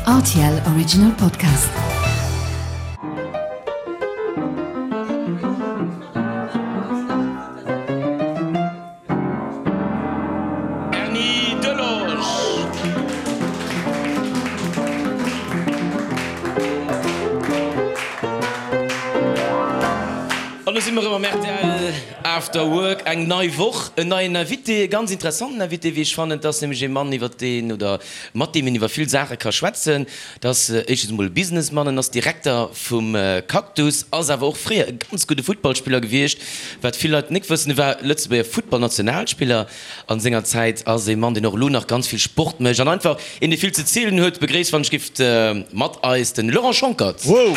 Rtl Original Podcast. Erny Delage. An do si mer erëm am rtl After Work. Eng nei Woch, en neien Invité, e ganz interessanten Invité, wéi ech fannen. Et ass nämlech ee Mann, iwwer deen oder mat deem een iwwer vill Saache ka schwätzen. Et ass éischtens emol e Businessman, en ass Direkter vum Cactus, ass awer och fréier e ganz gudde Futtballspiller gewiescht. Wat vill Leit nik wëssen, e war Lëtzebuerger Futtballnationalspiller an senger Zäit, ass ee Mann, deen och elo nach ganz vill Sport mécht an einfach een, dee vill ze zielen huet. Begréisst, wann ech giff, mat eis den Laurent Schonckert. Wou!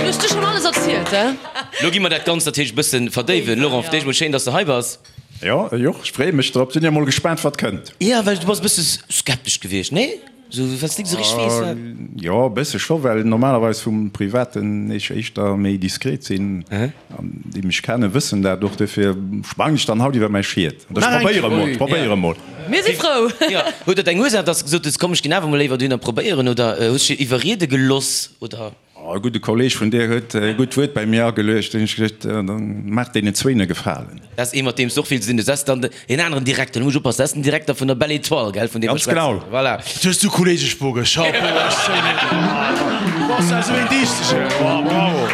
Du hues du schon alles erzielt, he? Lo gi mer dat Ganzt natierlech e bëssen verdéiwen. Laurent, fir d'éischt mol schéin, dass de hei bass. Jo, ech och. Ech freeë mech drop. Sinn jo mol gespaant, wat kënnt. Jo, well du bass e bësse skeptesch gewiescht, nee? Sou, well s de nik esou richteg weess, wat. Jo, e bësse scho, well normalerweis vum Privaten ech éischter méi diskret sinn. An déi mech kennen, wëssen dat och. Dofir sprangen ech dann haut iwwer mäi Schiet. An ech probéiere mol, ech probéiere mol. Mir si frou. Jo, huet dat eng Ursaach, dass de gesot hues, komm, ech ginn awer mol léiwer dohinner probéieren? Oder hues de dech iwwerriede geloss, oder? E gudde Kolleg vun dir huet e gutt Wuert bei mir ageluecht. Hunn ech gesot, dann maach deenen zwéin e Gefalen. Dat ass ee mat deem s de och vill ze dinn hues. Dat ass dann deen aneren Direkter, do muss ech oppassen, dat ass den Direkter vun der Belle Etoile, gell, vun deem mer Ganz genau. schwätzen. Voilà. Dat hues du Kolleg Spoge, Chapeau, ech zéien een. Du bass ja esou een Dichtegen, oh bravo.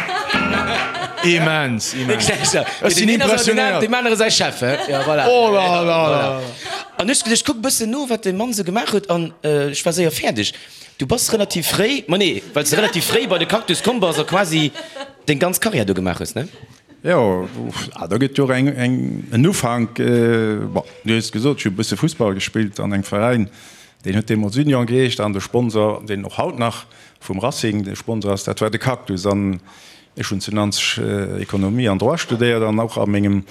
Immens, immens. Ech sinn impressionéiert. Deem anere säi Chef, he? Ja, voilà. Oh la la la. An ech gesot, ech kuck e bëssen no, wat dee Mann esou gemaach huet, an ech war séier fäerdeg. Du bass relativ fréi, ma nee, well s de relativ fréi bei de Cactus komm bass a quasi deng ganz Karriär do gemaach hues, ne? Jo, da gëtt jo och eng, eng, en Ufank. Bon, du hues gesot, ech hu e bësse Fussball gespillt an engem Veräin, deen huet deemools Union geheescht an de Sponsor, deen och haut nach vum Racing de Sponsor ass, dat war de Cactus. An ech hunn zu Nanzeg Ekonomie an Droit studéiert an och a mengem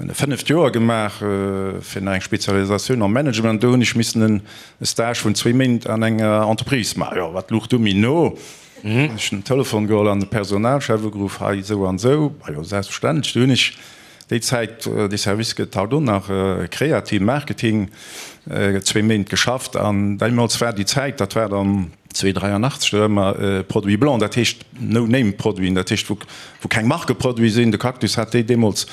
E fënneft Joer gemaach fir nach eng Spezialisatioun am Management. Do hunn ech missen e Stage vun zwéi Méint an enger Entreprise maachen. Jo, wat luch du méi no? Hunn ech den Telefon geholl an de Personalchef ugeruff, hei esou an esou. Ma jo, selbstverständlech. Du hunn ech déi Zäit, dee Service gëtt haut och nach, Kreativ Marketing, zwéi Méint geschafft. An deemools war déi Zäit, dat war dann 2,83, do hu mer Produits blancs, dat heescht No-Name-Produiten, dat heescht wou wou keng Markeproduite sinn. De Cactus hat déi deemools,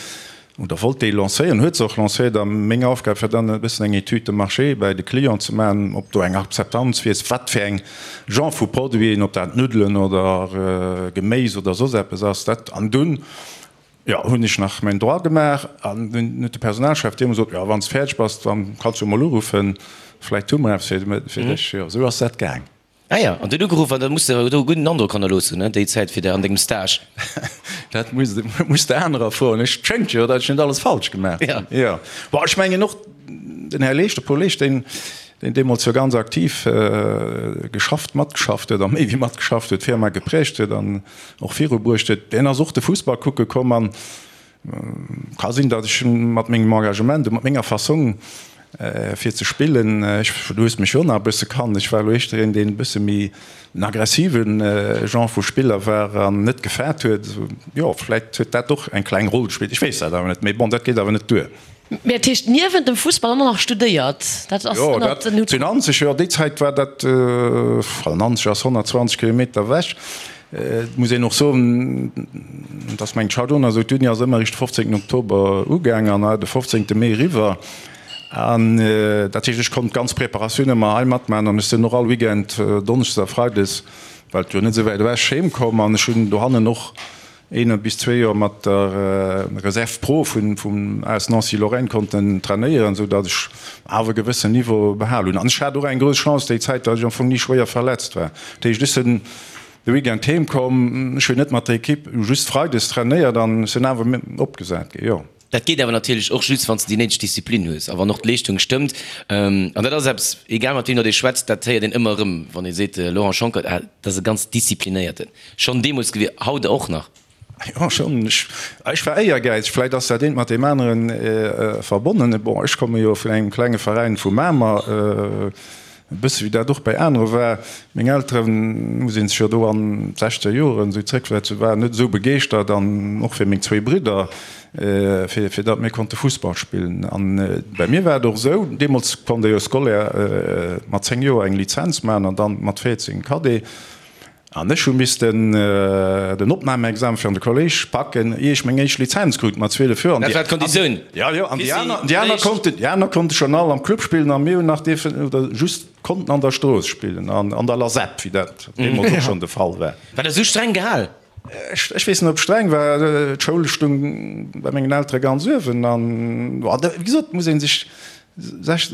oder wollt déi lancéieren, huet se och lancéiert. A meng Aufgab war dann e bëssen eng Étude de marché bäi de Clienten ze maachen, ob do eng Akzeptanz wier, wat fir eng Genre vu Produiten, ob dat Nuddelen oder Geméis oder soss eppes ass. Dat, an dunn, jo, hunn ech nach mäin Droit gemaach an dunn huet de Personalchef deemools gesot, jo, wann s de fäerdeg bass, dann kanns du emol uruffen, vläicht hu mer eppes fir dech. Jo, esou ass dat gaang. Ah ja, an huet ugeruff an da muss de do e gudden Androck hannerlooss hunn, déi Zäit fir der an dengem Stage. Dat muss de muss de anerer froen. Ech schéngt jo, datt ech net alles falsch gemaach hunn. Jo. Bon, ech mengen och den Här Leesch, de Paul Leesch, deen deen deemools jo ganz aktiv geschafft, matgeschafft huet a méi wéi matgeschafft huet, d'Firma geprägt huet an och virubruecht huet, deen ass och de Fussball kucke komm an Ka sinn, datt ech mat mengem Engagement a mat menger Fassong fir ze spillen, ech, du hues mech jo nach e bësse kannt, ech war elo éischter een, deen e bësse méi en aggressive Genre vu Spiller war an net gefaart huet. Jo, vläit huet dat och eng kleng Roll gespillt, ech weess dat awer net. Mee bon, dat geet awer net duer. Mee dat heescht niewent dem Fussball och nach studéiert? Dat ass Jo, ënnert dat den Hut. zu Nanzeg, jo, déi Zäit war dat, well Nanzeg ass 120 Kilometer ewech. Et muss een och soen, dass mengt Chardon, also d'Uni ass ëmmer eréischt de 15 Oktober ugaang an de 15 Mee eriwwer. An dat heescht, ech konnt d'ganz Preparatioun ëmmer hei matmaachen an ech sinn och all Weekend donneschdes a freides, well et jo net esou wäit ewech, heem komm an ech hunn dohannen och een bis zwee Joer mat der Reserve Pro vum AS Nancy Lorraine konnten trainéieren, esou datt ech awer e gewëssen Niveau behal hunn. An ech hat och eng grouss Chance déi Zäit, datt ech am Fong ni schwéier verletzt war. Dat heescht, ech sinn de Weekend heem komm, ech hunn net mat der Equipe just freides trainéiert an ech sinn awer opgesat ginn, jo. Dat geet awer natierlech och just, wann s de déi néideg Disziplin hues a wann och d'Leeschtung stëmmt. An dat ass eppes, egal mat wiem datt ee schwätzt, dat héiert een ëmmer erëm, wann ee seet, Laurent Schonckert, ah, dat ass e ganz disziplinéierten. Schonn deemools gewier, haut och nach. Jo, schonn. Ech war éiergäizeg. Vläicht ass dat eent mat deem anere verbonnen. Bon, ech komme jo vun engem klenge Veräin vu Mamer, e bësse wéi dat och bäi anere war. Meng Elteren, muss ee sech jo do an d'sechzeger Joren esou zréckversetzen, waren net esou begeeschtert an och fir meng zwéi Bridder. fir fir datt mir konnte Fussball spillen. An bei mir war et och esou, deemools konnt ee jo Scolaire mat 10 Joer eng Lizenz maachen an dann mat 14 Cadet. An ech hu missten den Opnahmeexamen fir an de Kolléisch packen, ier ech meng éischt Lizenz krut mat 12 Joer. Dat war d'Konditioun. Jo, jo, an déi aner, déi aner konnten, déi aner konnte schonn all am Club spillen a mir hunn nach dierfen oder just konnten an der Strooss spillen, an an der Lasep, wéi dat deemools och schonn de Fall war. War dat esou streng gehal? Ech, ech weess net, ob et streng war. D'Schoul stung bei mengen Eltere ganz uewen an, wéi gesot, muss ee sech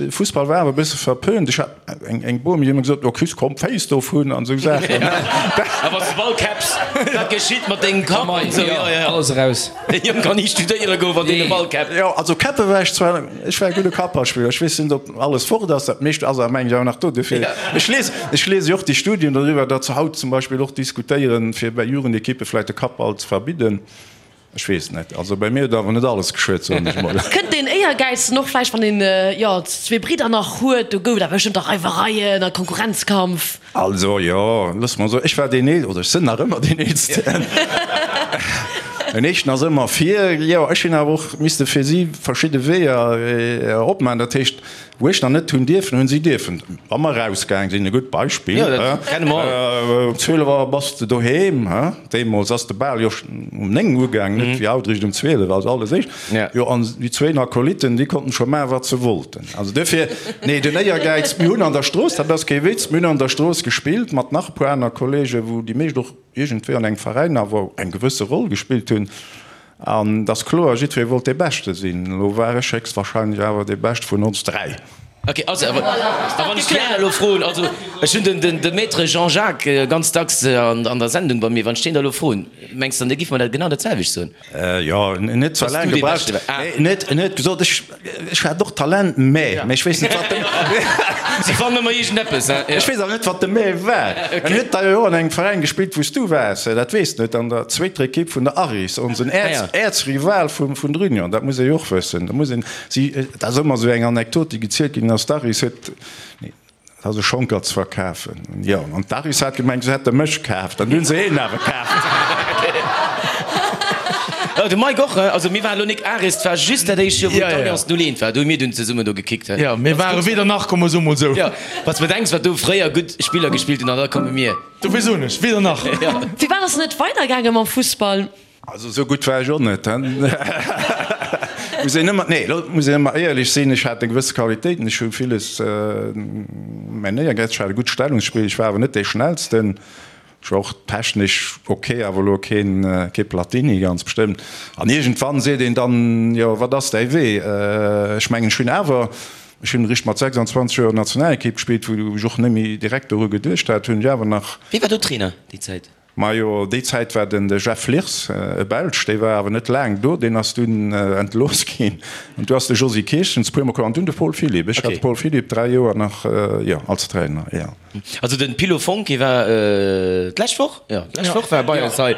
Fussball war awer e bësse verpönt. Ech hat eng Bomi, déi huet ëmmer gesot, Oh Chris, komm d'Féiss dovun an esou Saachen. A wann s de Ball käpps, wat geschitt mat dengem Kapp an esou. Jo, jo, alles eraus. Dee Jong kann ni studéiere goen, wann deen e Ball käppt. Jo, also käppe war ech zwar, ech war e gudde Kapperspiller. Ech weess net, ob alles fort ass, dat meescht ass awer mengen ech awer nach do. Dofir, ech lies, ech liese jo och déi Studien doriwwer, datt se haut zum Beispill och diskutéieren, fir bei Jugendekippe vläicht de Kappball ze verbidden. Ech weess net. Also bei mir huet awer net alles geschuet, soen ech mol. Kënnt deen Éiergäiz dann och vläicht, wann een, jo, zwee Bridder nach huet? Do gouf et awer bestëmmt och Reiwereien a Konkurrenzkampf. Also jo, loosse mer soen, ech war deen Eelsten, oder ech sinn nach ëmmer deen Eelsten. Den Éischten ass ëmmer vir. Jo, ech hunn awer och misste fir si verschidde Weeër opmaachen. Dat heescht, Wou ech nach net hunn dierfen, hunn si dierfen. Wa mer erausgaang sinn, e gutt Beispill, um 12 Auer bass de doheem, deemools ass de Bal jo um 9 ugaang, net wéi haut eréischt um 12, also alles éischt. Jo, an déi zwéin Akolytten, déi konnten scho maachen, wat se wollten. Also duerfir, nee, den Éiergäiz, mir hunn an der Strooss, dat ass kee Witz, mir hunn an der Strooss gespillt mat nach e puer aner Kollegen, wou déi meescht och iergendwéi an engem Veräin awer eng gewësse Roll gespillt hunn. An et ass kloer, jiddweree wollt dee Beschte sinn. Elo war ech héchstwahrscheinlech awer dee Beschte vun ons 3. Ok, also a wann ech déi aner elo froen, also ech hunn den de Maître Jean-Jacques ganz dacks an der Sendung bei mir, wann ech deen da elo froen, mengs de dann, dee giff mer dat genau dat selwecht soen? Jo, en huet zwar laang gebraucht, en huet gesot, ech Ech hat och Talent, mä, mä ech weess net, wat de. Si fannen ëmmer iergendeppes, hein? Ech weess awer net, wat de mä war. En huet da jo och an engem Veräin gespillt, wou s du waars, dat weess de net, an der zweeter Ekipp vun der Aris, onsen Äerz, Äerzrival vum, vun der Union. Dat muss ee jo och wëssen. Da muss een si, dat ass ëmmer esou eng Anekdot, déi gezielt ginn ass, d'Aris huet, nee, Dat ass e Schonkert ze verkafen. Jo, an d'Aris hat gemengt, se hätte mech kaaft, an du hunn se een awer kaaft. Jo, de Mike och, also mir waren elo nik Aris, 't war just dat éischt Joer, wou d'Alliance 01 war, do hu mir dunn zesummen do gekickt. Jo, mir ware weder nach, komm mer soe mol esou. Jo, wann s de bedenks, wat do fréier gutt Spiller gespillt hunn, an da komme mir. Dofir soen ech, weder nach. Firwat ass et net weidergaange mam Fussball? Also esou gutt war ech och net, he. Muss een ëmmer, nee, lo muss een ëmmer éierlech sinn, ech hat eng gewësse Qualitéiten, ech hu villes, mäin Éiergäiz, ech hat e gutt Stellungsspill, ech war awer net dee Schnellsten, ech war och technesch ok, awer elo keen, kee Platini ganz bestëmmt. An iergendwann seet een dann, jo, wat ass däi Wee? Ech mengen, ech hunn awer, ech hunn eréischt mat 26 Joer Nationalekipp gespillt, wou ech och net méi direkt doru geduecht hat, hunn ech awer nach. Wie war do Trainer déi Zäit? Majo, déi Zäit war den de Jeff Lirs, e Belsch, dee war awer net laang do, deen ass dunn entlooss ginn. An du ass de Josy Kirchens puer mol komm an dunn de Paul Philipp. Ech hat de Paul Philipp 3 Joer nach, jo, als Trainer, jo. Also den Pilo Fonck, hie war d'lescht Woch, jo, d'lescht Woch war e bei eis hei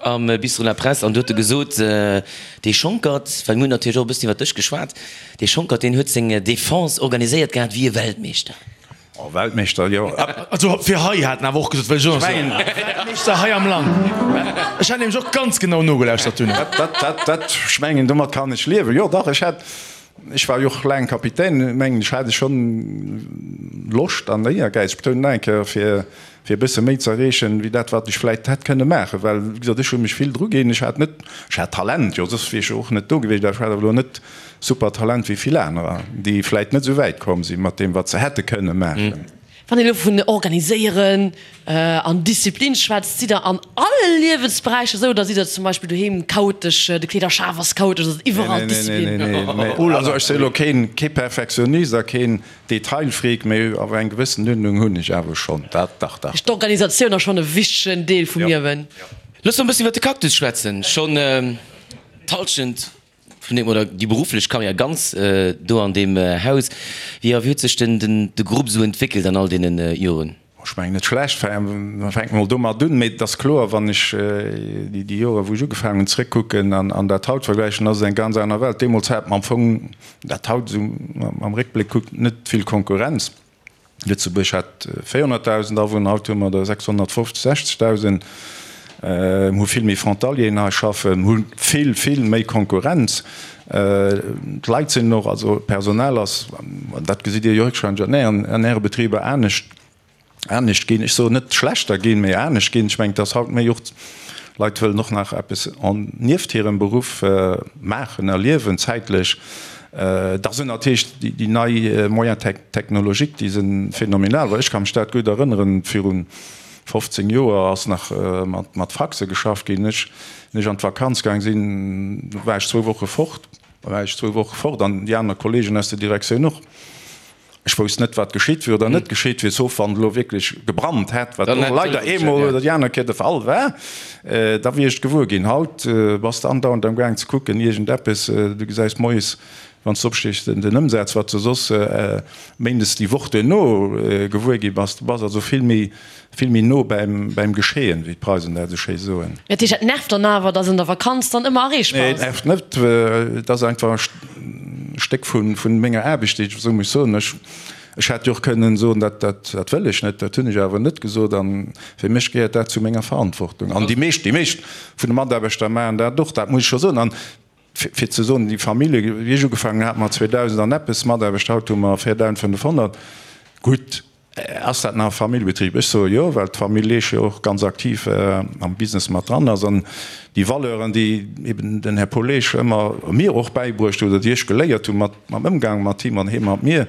am Bistrot La Presse an do huet e gesot, dee Schonkert, well mir hunn natierlech och e bëssen iwwer dech geschwat, dee Schonkert, deen huet seng Defense organiséiert gehat wéi e Weltmeeschter. Oh, Weltmeeschter, jo. Also fir hei hat en awer och gesot, well ech och nach soen, Weltmeeschter hei am Land. Ech hat nämlech och ganz genau nogelauschtert dunn. Dat, dat, dat, dat, ech mengen, domat kann ech liewen. Jo, dach, ech hat, ech war jo och laang Kapitän, mengen ech, hat ech schonn Loscht an Éiergäiz, ech betounen nach eng Kéier, fir, fir e bësse méi ze erreechen, wéi dat, wat ech vläicht hätt kënne maachen. Well, wéi gesot, ech hu mech vill druginn, ech hat net, ech hat Talent, jo, soss wier ech jo och net do gewiescht, awer ech hat awer elo net Super Talent wéi vill anerer, déi vläit net esou wäit komm si mat deem wat se hätte kënne maachen. Wann een elo vun organiséieren an Disziplin schwätzt, sidd der an alle Liewensberäicher esou oder sidd der zum Beispill doheem chaotesch, de Kleederschaf ass chaotesch, ass et iwwerall Disziplin? Nee, nee, nee, nee. Also ech si elo keen, kee Perfektionist a keen Detailfreak, mee awer eng gewëssen Uerdnung hunn ech awer schonn, dat dach, dach. D'Organisatioun ass schonn e wichtegen Deel vum Liewen. Looss mer e bëssen iwwer de Cactus schwätzen, schonn d'Hallschent Vun deem, oder déi berufflech Karriär ganz do an deem Haus. Wéi a wéi huet sech den de Grupp esou entwéckelt an all deene Joren? Ech mengen net schlecht, fänke mer mol domat un. Mee et ass kloer, wann ech déi Joren, wou ech ugefaangen hunn, zréckkucken an dat haut vergläichen, ass et eng ganz aner Welt. Deemools hat mer am Fong, dat haut esou am Réckbléck kuckt, net vill Konkurrenz. Lëtzebuerg hat 400.000 Awunner, haut hu mer der 650, 60.000. Mir hu vill méi Frontalieren hei schaffen, hu vill, vill méi Konkurrenz. D'Leit sinn och, also d'Personal ass, an dat gesitt Dir jo héchstwahrscheinlech an Äre Betriber anescht, anescht ginn. Ech soen net schlechter ginn, mee anescht ginn. Ech mengen, et ass haut méi och, d'Leit wëllen och nach eppes nieft hirem Beruff maachen, erliewen zäitlech. Da sinn natierlech déi nei Moyens technologiques, déi si phänomenal. Well ech ka mech dat gutt erënneren, viru 15 Joer ass nach mat Faxe geschafft ginn. Ech, wéi ech an d'Vakanz gaang sinn, war ech zwou Woche fort, war ech zwou Woche fort an déi aner Kollegen aus der Direktioun och. Ech wousst net, wat geschitt wier oder net geschitt wier, sauf wann et elo wierklech gebrannt hätt, wat och leider eemol oder déi aner Kéier de Fall war, da wier ech et gewuer ginn. Haut bass de andauernd am gaang ze kucken, iergendeppes, du gesäis moies, wann s de opstees, den Ëmsaz, wat s de soss méindes déi Woch duerno gewuer gi bass. Du bass also vill méi Vill méi no bäim Geschehen, wéi d'Preisen dat esou schéi soen. Dat heescht, dat nervt dann awer, dass en der Vakanz dann ëmmer erreechbar ass? Nee, et nervt net. Et ass einfach e Stéck vu menger Aarbecht, déi ech esou muss soen. Ech hätt jo och kënnen soen, dat wëll ech net. Dat hunn ech awer net gesot. A fir mech gehéiert dat zu menger Verantwortung. An déi meescht, déi meescht vun de Mataarbechter maachen dat och, dat muss ech scho soen. An fir ze soen, déi Famillje, wéi ech ugefaangen hunn, hate mer 2.000 an eppes Mataarbechter, haut hu mer 4.500. Gutt. Ass dat nach e Familljebetrib? Ech soe jo, well d'Famill Leesch jo och ganz aktiv am Business mat dran ass. An déi Valeuren, déi eben den Här Paul Leesch ëmmer mir och bäibruecht huet oder déi ech geléiert hu mat mam Ëmgang mat him an hie mat mir,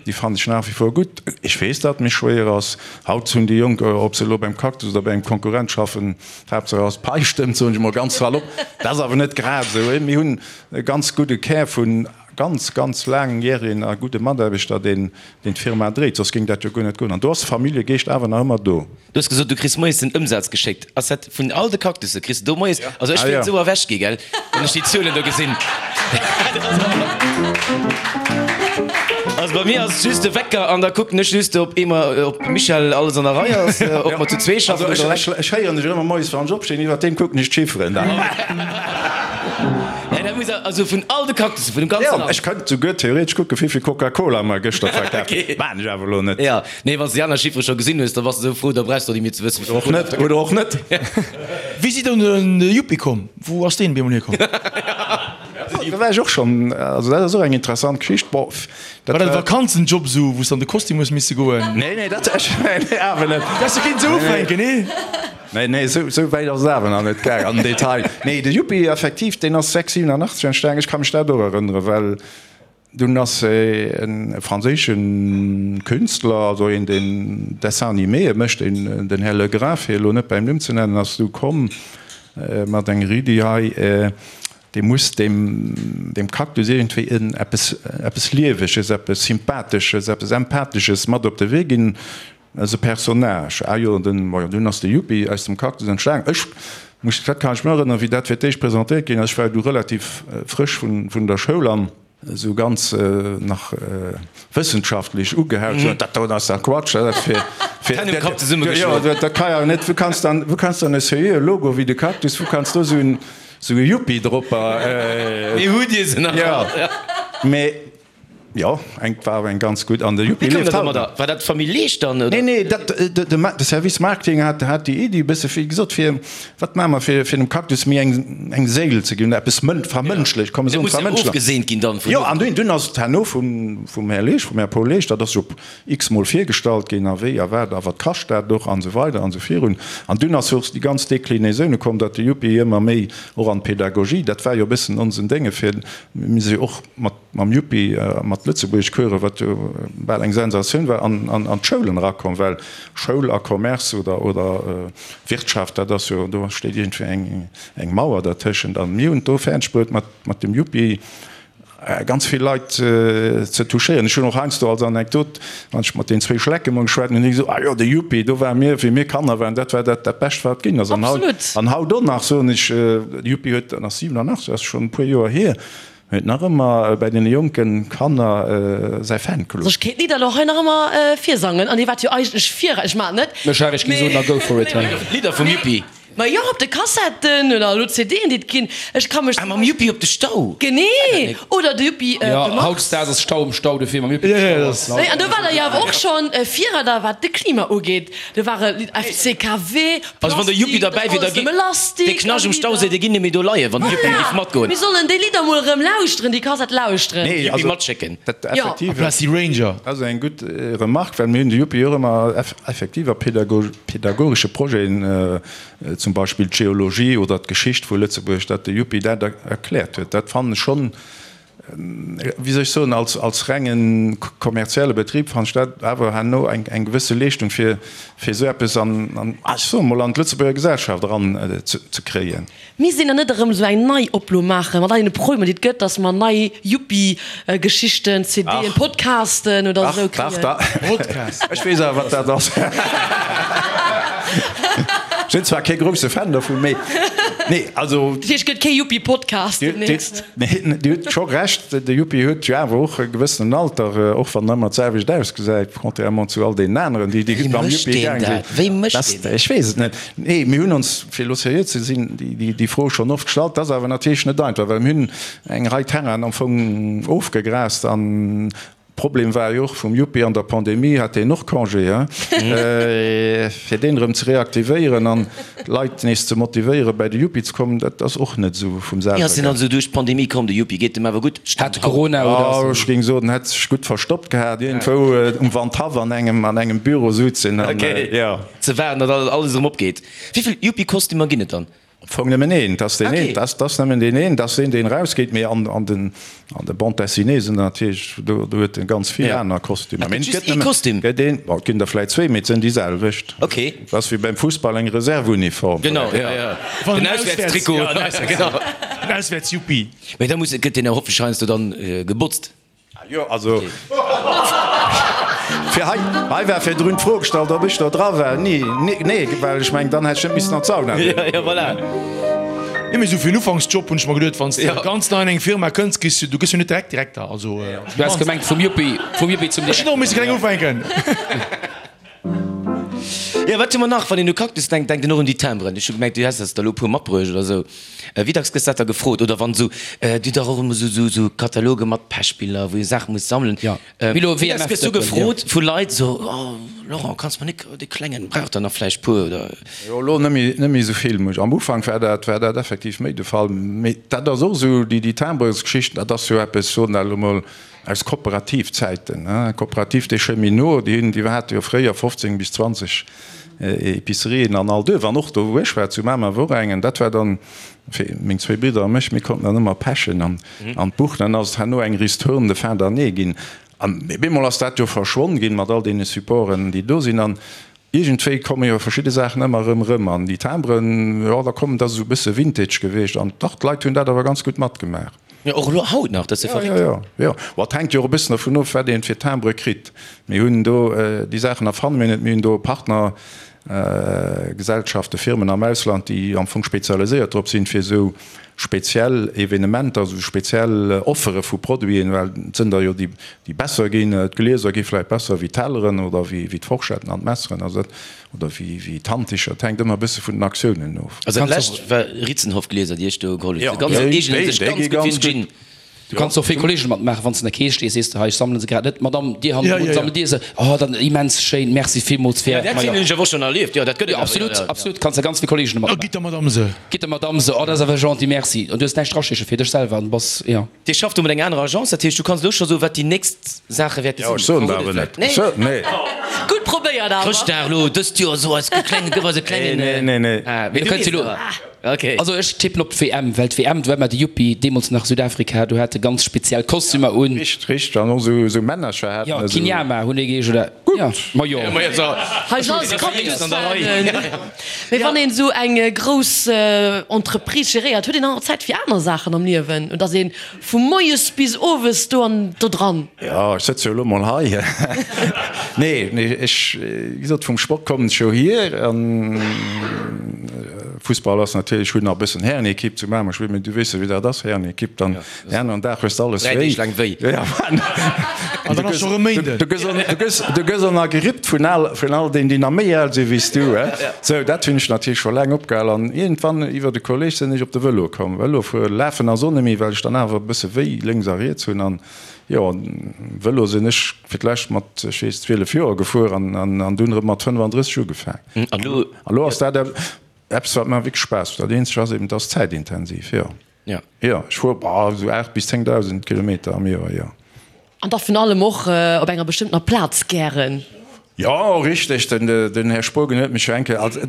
déi fannen ech nach wie vor gutt. Ech weess, datt et méi schwéier ass. Haut hunn déi Jonk, ob se elo beim Cactus oder bei engem Konkurrent schaffen, d'Haaptsaach ass, d'Pai stëmmt, soen ech emol ganz salopp. Dat ass awer net grad esou. Mir hunn e ganz gudde Kär vun ganz, ganz laangjäregen a gudde Mataarbechter, deen deen d'Firma dréit, soss géing dat jo guer net goen. An do ass de Familljegeescht awer nach ëmmer do. Du hues gesot, du kriss moies den Ëmsaz geschéckt. Ass dat vun all de Cactusse? Kriss de do moies? Also ech wéilt esou erwächt gi, gell, wann ech déi Zuelen do gesinn. Also bei mir ass et just de Wecker an da kucken ech just, ob eemol, ob Michèle alles an der Rei ass, ob mer zu zwee schaffen oder eleng. Also ech héieren dech ëmmer moies, wann ech opstinn, iwwert deem kucken ech d'Chifferen dann. Nee, dat muss also vun all de Cactussen, vun dem ganze Land. Jo, ech kënnt souguer theoretesch kucken, wéivill Coca-Cola mer gëschter verkaf hunn. Maachen ech awer elo net. Jo, nee, wann s de déi aner Chiffere scho gesinn hues, da bass de esou frou, da brauchs de och net méi ze wëssen, wéivill Cola. Oder och net, oder och net. Wéi sidd der un de Yuppi komm? Wou ass deen op eemol hierkomm? Do war ech och schonn, also dat ass och eng interessant Geschicht. Bon, dat war. War dat e Vakanzenjob esou, wou s de an de Kostüm hues misse goen? Nee, nee, dat, nee, awer net. Dat häss du kinnt esou ufänken, nee? Nee, nee, esou, esou wäit ass et awer nach net gaang an den Detail. Nee, de Yuppi, effektiv, deen ass 6, 87 entstanen. Ech ka mech dat och erënneren, well dunn ass e franséische Künstler, also een, deen Dessins-animéë mécht, deen, den Här Legrain, fir elo net bäim Numm ze nennen, ass du komm mat enger Iddi hei, dee muss deem, deem Cactus iergendwéi en eppes, eppes Lieweges, eppes Sympathesches, eppes Empathesches mat op de Wee ginn. Ass e Personnage. Ah jo, den, majo, dunn ass de Yuppi aus dem Cactus entstanen. Ech muss, dat kann ech mir erënneren, wéi dat fir d'éischt presentéiert ginn ass. Ech war du relativ frësch vun, vun der Schoul an esou ganz nach wëssenschaftlech ugehaut, sou, dat do ass dach Quatsch, dat ass fir, fir, D'Hänn um Kapp zesummegeschloen. Jo, dat ka jo net, wou kanns dann, wou kanns dann e seriöe Logo wéi de Cactus, wou kanns do esou en, esou e Yuppi dropper, Mee hutt Dir se nach all? Jo, mee. Jo, eng war awer eng ganz gutt an de Yuppi Wéi koum lieft dat haut nach. domadder? War dat d'Famill Leesch dann, oder? Nee, nee, dat, de, de Service Marketing hat, hat déi Iddi e bësse wéi gesot, fir, wat maache mer, fir, fir dem Cactus méi eng, eng Séil ze ginn, eppes mën, vermënschlecht, komm mer Dat soen muss jo vermënschlecht. ofgeseent ginn dann vun Jo, an dunn, dunn ass et herno vum, vum Här Leesch, vum Här Paul Leesch, dat ass jo x-mol virgestallt ginn a wéi a wat a wat kascht dat och an esou weider an esou virun. An dunn ass jo och déi ganz Déclinaisone komm, datt de Yuppi ëmmer méi och an d'Pedagogie, dat war jo e bëssen onsen Dénge fir, mir si jo och mat, mam Yuppi mat Lëtzebuergeschcoursen, wat jo bal eng Sensatioun war, an d'Schoulen erakomm, well Schoul a Commerce oder oder Wirtschaft, dat ass jo, do steet iergendwéi eng eng Mauer dertëschent. A mir hunn et do fäerdeg bruet, mat mat dem Yuppi ganz vill Leit ze touchéieren. Ech hunn och heiansdo als Anekdot, wann ech mat den zwéi Schlecke mol geschwat hunn, hunn déi gesot, Ah jo, de Yuppi, do ware mir, wéi mir Kanner waren, dat war dat dat Bescht, wat ginn ass. An haut, an haut och nach soen ech, de Yuppi huet, dat ass 87, ass schonn e puer Joer hier, Huet nach ëmmer bäi den jonken Kanner säi Fanclub. Also ech kéint d'Lidd elo hei nach ëmmer virsangen an dir waart jo eigentlech vir, ech maan et net. Mech ech géing soen, na go for it. Lidder vum Yuppi. Ma jo, op de Kassetten oder elo CDen, déi et ginn. Ech ka mech. Ah, mam Yuppi op de Stau? Genee! Oder de Yuppi op Jo, de Mars. hautdesdaags ass Stau um Stau, dofir mam Yuppi op de Stau ass laut. Nee, an do war der jo awer och schonn Virreider, wat de Klima ugeet. Do ware FCKW, Also wann de Yuppi Plastik, dat derbäi wier, da alles gi nëmme Lastik de a Knascht um Lidder. Stauséi, dee ginn net méi do leien, wann de Yuppi Voilà! géif matgoen. Mir sollen déi Lidder mol erëm lauschteren, déi Kassett lauschteren. Nee, Yuppi also matschécken. dat Jo. effektiv. Amplaz déi Ranger. Dat ass eng gutt Remarque, well mir hunn de Yuppi och ëmmer effektiv a pedagogesche Projeten, zum Beispill d'Geologie oder d'Geschicht vu Lëtzebuerg, datt de Yuppi dat erkläert huet. Dat fannen ech schonn, wéi soll ech soen, als, als renge kommerzielle Betrib fannen ech dat awer herno eng, eng gewësse Leeschtung, fir, fir esou eppes an, an, ech soe mol, an d'Lëtzebuerger Gesellschaft eran ze, ze kréien. Misst een dann net erëm esou eng nei Oplo maachen, mat all deene Problemer, déi et gëtt, datt mer nei Yuppi-Geschichten, CDen, Podcasten oder esou kréien? Dach, dach, ech weess awer, wat dat ass. Ech sinn zwar kee grousse Fan dovun, mee, nee, also. Dat heescht, et gëtt kee Yuppi-Podcast demnächst? Nee, Dir hutt scho Recht, de Yuppi huet jo awer och e gewëssenen Alter, och wann en ëmmer d'selwecht ausgesäit, contrairement zu all deenen aneren, déi Wéi mam mécht Yuppi deen gaang sinn. dat? Wéi mécht deen dat? Ech weess et net. Nee, mir hunn ons, fir elo seriö ze sinn, déi Fro schonn oft gestallt. Dat ass awer natierlech net einfach, well mir hunn eng Rei Terrainen am Fong ofgegraast an Problem war jo och vum Yuppi, an der Pandemie hat deen och Congé, he? Fir deen erëm ze reaktivéieren an d'Leit nees ze motivéieren, bäi de Yuppi ze kommen, dat ass och net esou vum Wéi selwer ass deen gaang. also duerch d'Pandemie komm, de Yuppi? Geet em awer gutt? Hat Corona oder ass Oh, ech géing soen, en hätt sech gutt verstoppt gehat, iergendwou um Wandhaff an engem, an engem Büro sutzen an, jo. Ze waarden, datt alles erëm opgeet. Wéi vill Yuppi-Kostümer ginn et dann? Am Fong nëmmen een, et ass deen een, Okay. et ass nëmmen deen een, et ass deen, deen erausgeet, mee an, an den, an de Bande dessinée sinn der natierlech, do, do huet en ganz vill Ja. aner Kostümer. Et Mee gëtt et just gëtt ee nëmmen, Kostüm. gëtt een, bon, et ginn der vläit zwee, mee et sinn déi selwecht. Okay. Et ass wéi beim Fussball eng Reserveuniform. Genau, ja, ja. Wann Den en auswäerts, Auswäertstrikot. ja, den Auswäerts, Genau. den Auswäerts-Yuppi. Mee da muss, gëtt deen awer hoffentlech heiansdo dann gebotzt. Jo, also fir hei, hei war virdrun d'Fro gestallt, ob ech do dra war. Nee, nee, well ech mengen, dann hätt ech net missen an d'Sauna goen. Ja, ja, voilà. Nee, mee sou fir en Ufanksjob hunn ech mer geduet, wann s de ganz nei an eng Firma kënns, kriss du, du gëss jo net direkt Direkter, also. Du has gemengt vum Yuppie, vum Yuppie zum Ech hunn och misse kleng ufänken. Jo, wat hu mer nach? Wann een u Cactus denkt, denkt een och un déi Timberen. Ech hu gemengt, du häss eis der elo e puer matbruecht oder esou. Wéi dacks gëss dat da gefrot? Oder wann esou, dir hutt dach och ëmmer esou, esou Kataloge mat Pechbiller, wou ee Saache muss sammelen. Jo, Milo, Wéi dacks gëss du WMF-Dëppen, jo. gefrot vu Leit esou, Oh, Laurent, kanns mer nik dee Klengen, brauch der nach vläicht puer oder? Jo, elo net méi, net méi esou vill. Am Ufank war dat, war dat effektiv méi de Fall. Mee dat ass och esou, déi, déi Timbresgeschichten, dat ass jo eppes, soen dat elo mol, Aus Kooperativzäiten, Coopérative des Cheminots, déi hunn, déi hate jo fréier 15 bis 20 Epicerien an all Duerf, an och do wou ech war, zu Mamer wor eng, an dat war dann fir meng zwéi Bridder a mech, mir konnten dann ëmmer pechen an an d'Buch. Dann ass et herno eng Ristourne de fin d'année ginn, an op eemol ass dat jo verschwonn ginn mat all deene Supporten, déi do sinn, an Iergendwéi komme jo verschidde Saachen ëmmer erëm erëm an déi Timbren, jo da kommen, dat ass esou e bësse Vintage gewiescht an dach, d'Leit hunn dat awer ganz gutt matgemaach. Jo, och elo haut nach, dat ass jo Jo, verréckt. jo, jo. Bon, et hänkt jo och e bëssen dervun of, wat een fir Timbre kritt. Mir hunn do, déi Saachen erfanne mir net, mir hunn do Partner Gesellschaften, Firmen am Ausland, déi am Fong spezialiséiert drop sinn, fir esou speziell Evenementer, esou speziell Offere vu Produiten, well et sënn der jo déi, déi besser ginn, d'Glieser gi vläicht besser wéi d'Telleren oder wéi d'Forschetten an d'Messeren, also dat, oder wéi wéi d'Handticher, et hänkt ëmmer e bësse vun den Aktiounen of. Also dat lescht war Ritzenhoff-Glieser, déi ech do geholl hunn, déi eegnen sech ganz gutt fir den Gin. Du kanns och vill Kollegen matmaachen, wann s de an der Kees stees, sees de, hei ech sammelen se grad net, Madame, dir hannendrun, sammelt dir se? Oh, dann immens schéin, merci villmools fir. Ja, dat hunn ech awer och schonn erlieft, jo, dat gëtt et awer, jo, Absolut, absolut, kanns de ganz vill Kollegen Oh, matmaachen. gitt der Madame se. Gitt der Madame se, oh, dat ass awer gentil, merci. An du hues näischt draschéche fir dech selwer an bass, jo. Dir schafft do mat enger anerer Agence, dat heescht, du kanns elo scho soen, wat déi nächst Saache wäerte Jo, sinn. ech soen der Verrot awer et net. vläicht? Nee. Ech soen, nee. Gutt probéiert awer. Chrëschtdag elo dëst Joer, so eis klengen, gëff eis e klengen. Nee, nee, nee. Ah, mee Du du kënns weess elo. awer. Okay. Also ech tippen op d'WM, well d'WM, do war mer de Yuppi, deemools nach Südafrika, do hate ganz speziell Kostümer un. Richt, richt, an och esou, esou Männercher haten Jo, esou. Kinyama hunn déi geheescht, oder? Jo, ma jo. Hei sinn alles Cactus-Fanen. Mee wann een esou eng grouss Entreprise geréiert, huet een dann och Zäit fir aner Saachen am Liewen? Oder ass een vu moies bis owes do an do dran? Jo, ech sëtze jo elo mol hei. Nee, nee, ech, wéi gesot, vum Sport kommen ech jo hier. An Fussball ass natierlech, ech hunn nach e bëssen Härenekipp zu Mamer gespillt, mee du weess jo, wéi dat ass, Härenekipp, dann den aneren Dag hues de alles Dräi wéi. Deeg laang wéi. Jo, jo. An dann ass scho rëm Méinden. Du gëss, du gëss och nach gerippt vun al, vun all deenen, déi nach méi al si wéi s du, he. Sou, dat hunn ech natierlech scho laang opgehal an iergendwann iwwert e Kolleg sinn ech op de Vëlo komm. Vëlo fuere, lafen ass och net méi, well ech dann awer e bësse wéi lénks a riets hunn an jo, Vëlo sinn ech fir d'lescht mat, ech weess, 12 Joer gefuer an, an dunn erëm mat 35 ugefaang. An elo? An elo ass dat eppes, wat mer wierklech Spaass mécht. Dat eenzegt ass eben, et ass zäitintensiv, jo. Jo. Jo, ech fuer, bah, esou 8 bis 10.000 Kilometer am Joer, jo. An da vun allem och op enger bestëmmtener Plaz gären. Jo, richteg, den Här Spogen huet mech jo eng Kéier, also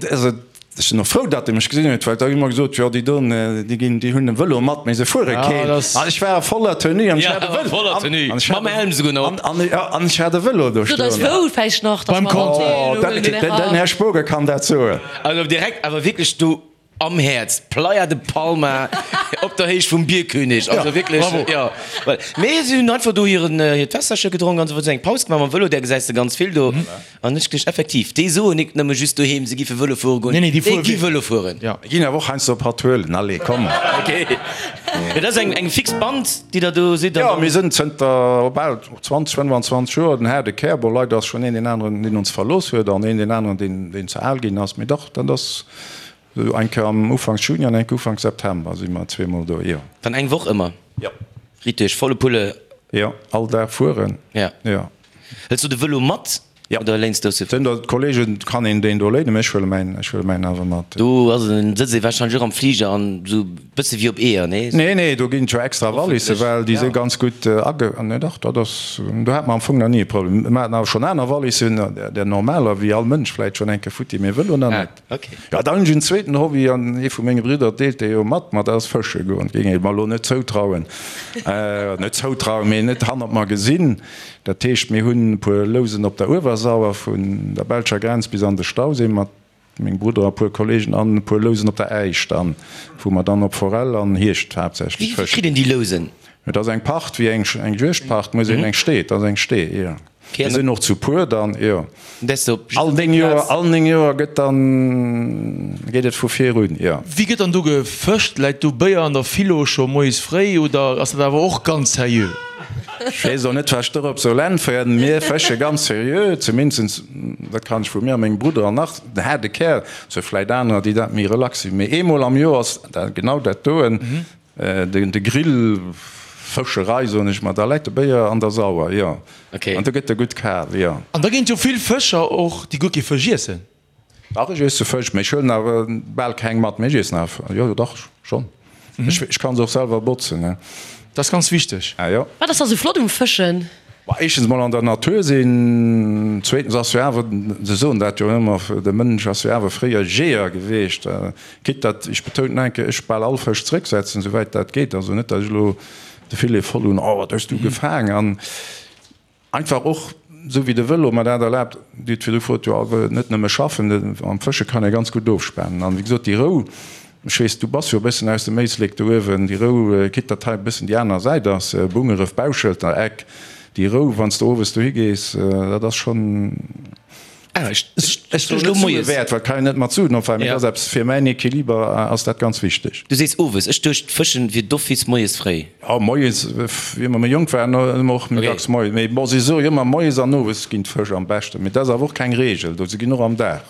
ech sinn och frou, datt e mech gesinn huet, well da hu mer gesot, jo déi doen, déi ginn, déi hunn e Vëlo mat, mee se fuere keen. An ech war a voller Tenue an ech hat e Vëlo. Voller Tenue, mam Helm souguer nach op. An ech hat e Vëlo do stoen. Sot eis wou vläicht nach, datt mer Oh, den Här Spogen kann dat soen. Also direkt awer wierklech do Am Häerz, Playa de Palma, op der Héicht vum Bierkönig. Also wierklech, jo. Mee si hunn einfach do hiren, hiert Wässerche gedronk an esou weider, eng Paus gemaach mam Vëlo, där gesäis de ganz vill do. An ech gleef effektiv, déi soen nik nëmme just doheem, se giffe Vëlo fuere goen, déi gi Vëlo fueren. Mir ginn awer och heiansdo e Patruelen, allez, komm. Ok. Dat ass eng, eng fix Band, déi der do sidd? Jo, mir sinn zënter bal 20, 25 Joer den haarde Kär. Bon, leider ass schonn een deen aneren, deen ons verlooss huet an een deen aneren, deen, deen ze al ginn ass. Mee dach, dat ass. Esou eng Kéier am Ufanks Juni an eng Kéier Ufanks September si mer zweemol do, jo. Dann eng Woch ëmmer? Jo. Riit duerch, volle Pulle? Jo, all Dag fueren. Ja. Jo. Hëls du de Vëlo mat? Jo. Oder léins du se? Sinn der Kollegen, kann een deen do léinen, mee ech huele mäin, ech huele mäin awer mat. Do ass en, sëtzt ee warscheinlech och am Fliger an esou bësse wéi op Eeër, nee? Nee, nee, do ginn et jo extra Wallissen, well déi si ganz gutt age, nee dach, dat ass, do hate mer am Fong nach ni e Problem. Mer haten awer schonn aner Wallissen, där normaler, wéi all Mënsch vläit schonn eng Kéier futti, mee Vëlo nach net. Ok. Jo, dann hunn ech en zweeten Hobby, an ee vu menge Bridder deelt dee jo mat mer, dat ass fësche goen. Géing ech mer elo net zoutrauen, net zoutrauen, mee net hannert mer gesinn. Dat heescht, mir hunn e puer Lousen op der Uewersauer, vun der belscher Grenz bis an de Stauséi mat mengem Brudder a puer Kollegen, an e puer Lousen op der Äisch dann, wou mer dann op Forell an Hiecht haaptsächlech Wéi fëschen. kritt een déi Lousen? Et ass eng Pacht, wéi eng Juegdpacht, muss een eng Stee, et ass eng Stee, jo. Mir sinn och zu puer dann, jo. All 9 Joer, all 9 Joer gëtt dann, geet et vu vir un, jo. Wéi gëtt dann do gefëscht? Läit do Béier an der Philo scho moies fréi oder ass dat awer och ganz seriö? Ech weess och net, wat ech dorop soll äntweren. Mir fësche ganz seriö, zumindest, dat kann ech vu mir a mengem Brudder an nach den haarde Kär, et si vläit anerer, déi dat méi relax sinn, mee eemol am Joer ass dat genau dat doen. De Grill, Fëscherei soen ech mer, da läit de Béier an der Sauer, jo. An do gëtt e gutt kal, jo. An da ginn et jo vill Fëscher och, déi guer kee Fësch iessen. Dach, ech iesse Fësch, mee ech huelen awer bal keng mat. Mee ech iessen awer, jo, dach, schonn. Ech kann se och selwer botzen, ne. Dat ass ganz wichteg. Ah jo. Wat ass da sou flott um Fëschen? Bah, éischtens mol an der Natur sinn, zweetens ass jo awer, se soen dat jo ëmmer, de Mënsch ass jo awer fréier Jeeër geweecht. Quitte datt, ech betounen nach eng Kéier, ech bal all Fësch zrécksetzen, souwäit dat geet. Also net, datt ech elo de Filet voll hunn, oh wat hues du gefaang. An einfach och, esou wéi de Vëlo mer dat erlaabt, Dir hutt virdru gefrot, jo net nëmme schaffen, am Fësche kann ee ganz gutt ofspanen. An wéi gesot, déi Rou, ech weess, du bass jo e bëssen aus dem Éislek do uewen, déi Rou, quitte datt hei e bëssen déi aner Säit ass, Bungeref, Bauschelter Eck, déi Rou, wann s de owes dohi gees, dat ass schonn. Ah, ech, ech, Ech soen net Sue wäert, well kann een net mat Suen opweien, mee dat ass eppes, fir mäin Equiliber ass dat ganz wichteg. Du sees owes, ech duecht fëschen wier d'office moies fréi. Jo, moies, wéi mer méi jonk waren, hu mer och méi dacks moies, mee bon, si soe jo ëmmer moies an owes ginn d'Fësch am beschten, mee dat ass awer och keng Reegel, do se ginn och am Dag.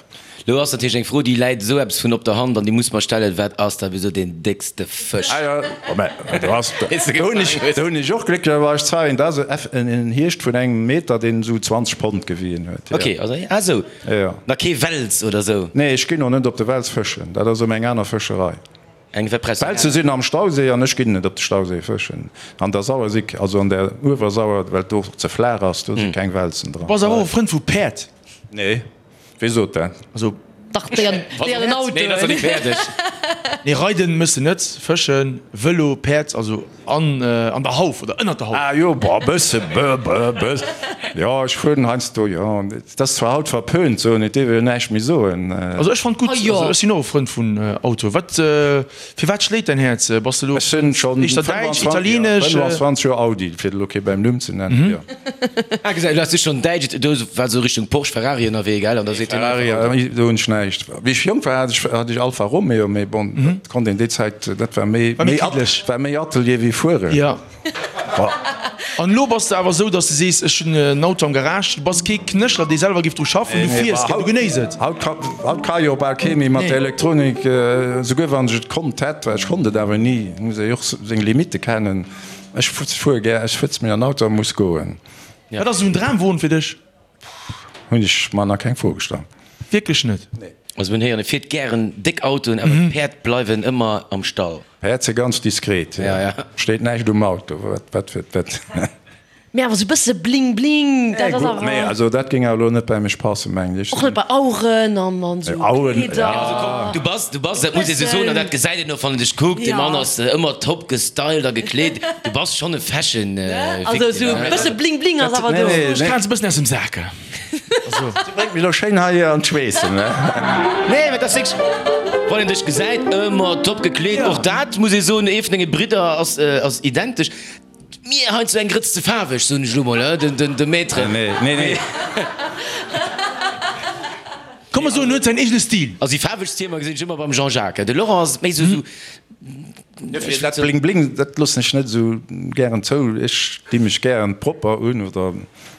Lo ass natierlech eng Fro, déi läit esou eppes vun op der Hand an déi muss mer stellen, Wat ass da wisou deen déckste Fësch? Ah jo, oh mä do ass, do hunn ech, do hunn ech och glécklecherweis Zeien, dat ass en Hiecht vun engem Meter, deen esou 20 Pond gewien huet, jo. Ok, also, ah esou, Jo. na kee Wels oder esou? Nee, ech ginn och net op de Wels fëschen, dat ass erëm eng aner Fëscherei. Eng Repression. Welse sinn am Stauséi an ech ginn net op de Stauséi fëschen. An der Sauer si, also an der Uewersauer, well et do ze flaach ass, do si keng Welzen dran. Bass awer och e Frënd vu Päerd? Nee. Wee sot dat? Also. Dach, déi an, déi an den Autoen. Nee, dat ass nach net fäerdeg. Nee, reiden mëss de net, fëschen, Vëlo, Päerd, also an, an der Hauf oder ënnert der Hauf. Ah jo, boah, bësse, bë, bë, bës. Jo, ech fueren heiansdo, jo. Et ass zwar haut verpönt, soen, et dierf een jo näischt méi soen. Also ech fannt gutt, also ech sinn och e Frënd vun Auto. Wat, fir wat schléit däin Häerz? Bass de elo Ech sinn schonn éischter däitsch, italienesch? 25 Joer Audi, fir elo kee bäim Numm ze nennen, jo. Ah, gesäit, du has du schonn däitsch, do war sou Richtung Porsche, Ferrari ënnerwee, gell? An da seet hien einfach Ferrari, Audi. do hunn ech näischt. Wéi ech jonk war, hat ech, hat ech Alfa Romeo, mee bon, dat konnt een déi Zäit, dat war méi, War méi méi, kiddlech. war méi Atelier wéi fueren. Jo. Bon. An elo bass de awer esou, dass de sees, ech hunn en Auto am Garage. Du bass kee Knéchler, dee selwer géif dru schaffen. Du fiers gär, du genéiss et. Haut ka jo bal kee méi mat der Elektronik, esouguer wann ech et konnt hätt, well ech konnt et awer ni, muss ee jo och seng Limitte kennen. Ech fuere gär, ech sëtze mech an den Auto a muss goen. Wat ass esou en Dramwon fir dech? Hunn ech mer nach keng Fro gestallt. Wierklech net? Nee. Also mir hunn héieren, e fiert gären déck Autoen, awer d'Päerd bleiwen ëmmer am Stall. Päerd si ganz diskret, steet näischt um Auto, wat fir wat. Mee awer sou bësse bling bling, dat ass awer. Nee, also dat géing awer elo net bäi mech passen, mengen ech. Och net bei Aueren an an sou Kleeder. Ja, also komm, du bass, du bass, dat muss ee sou soen, an dat gesäit een och, wann een dech kuckt, dee Mann ass ëmmer top gestylt a gekleet, du bass schonn e Fashion Victim. Also sou bësse bling bling ass awer do. Ech krazen e bëssen aus dem Sak. Du bréngt mech elo schéin hei an d'Schweessen, ne? Nee, mä dat ass wierklech, wann een dech gesäit, ëmmer top gekleet. Och dat muss ee soen, ee vun denge Bridder ass, ass identesch. Mir heiansdo eng Grëtz ze faarweg, soen ech elo mol, den, de Maître. Nee, nee, nee. Komm mer soen, en huet säin eegene Stil. Also déi faarwegst Hiemer gesinn ech ëmmer beim Jean-Jacques. De Laurent ass méi sou, sou. Dat Bling Bling, dat loossen ech net esou gären zou. Ech di mech gären propper un oder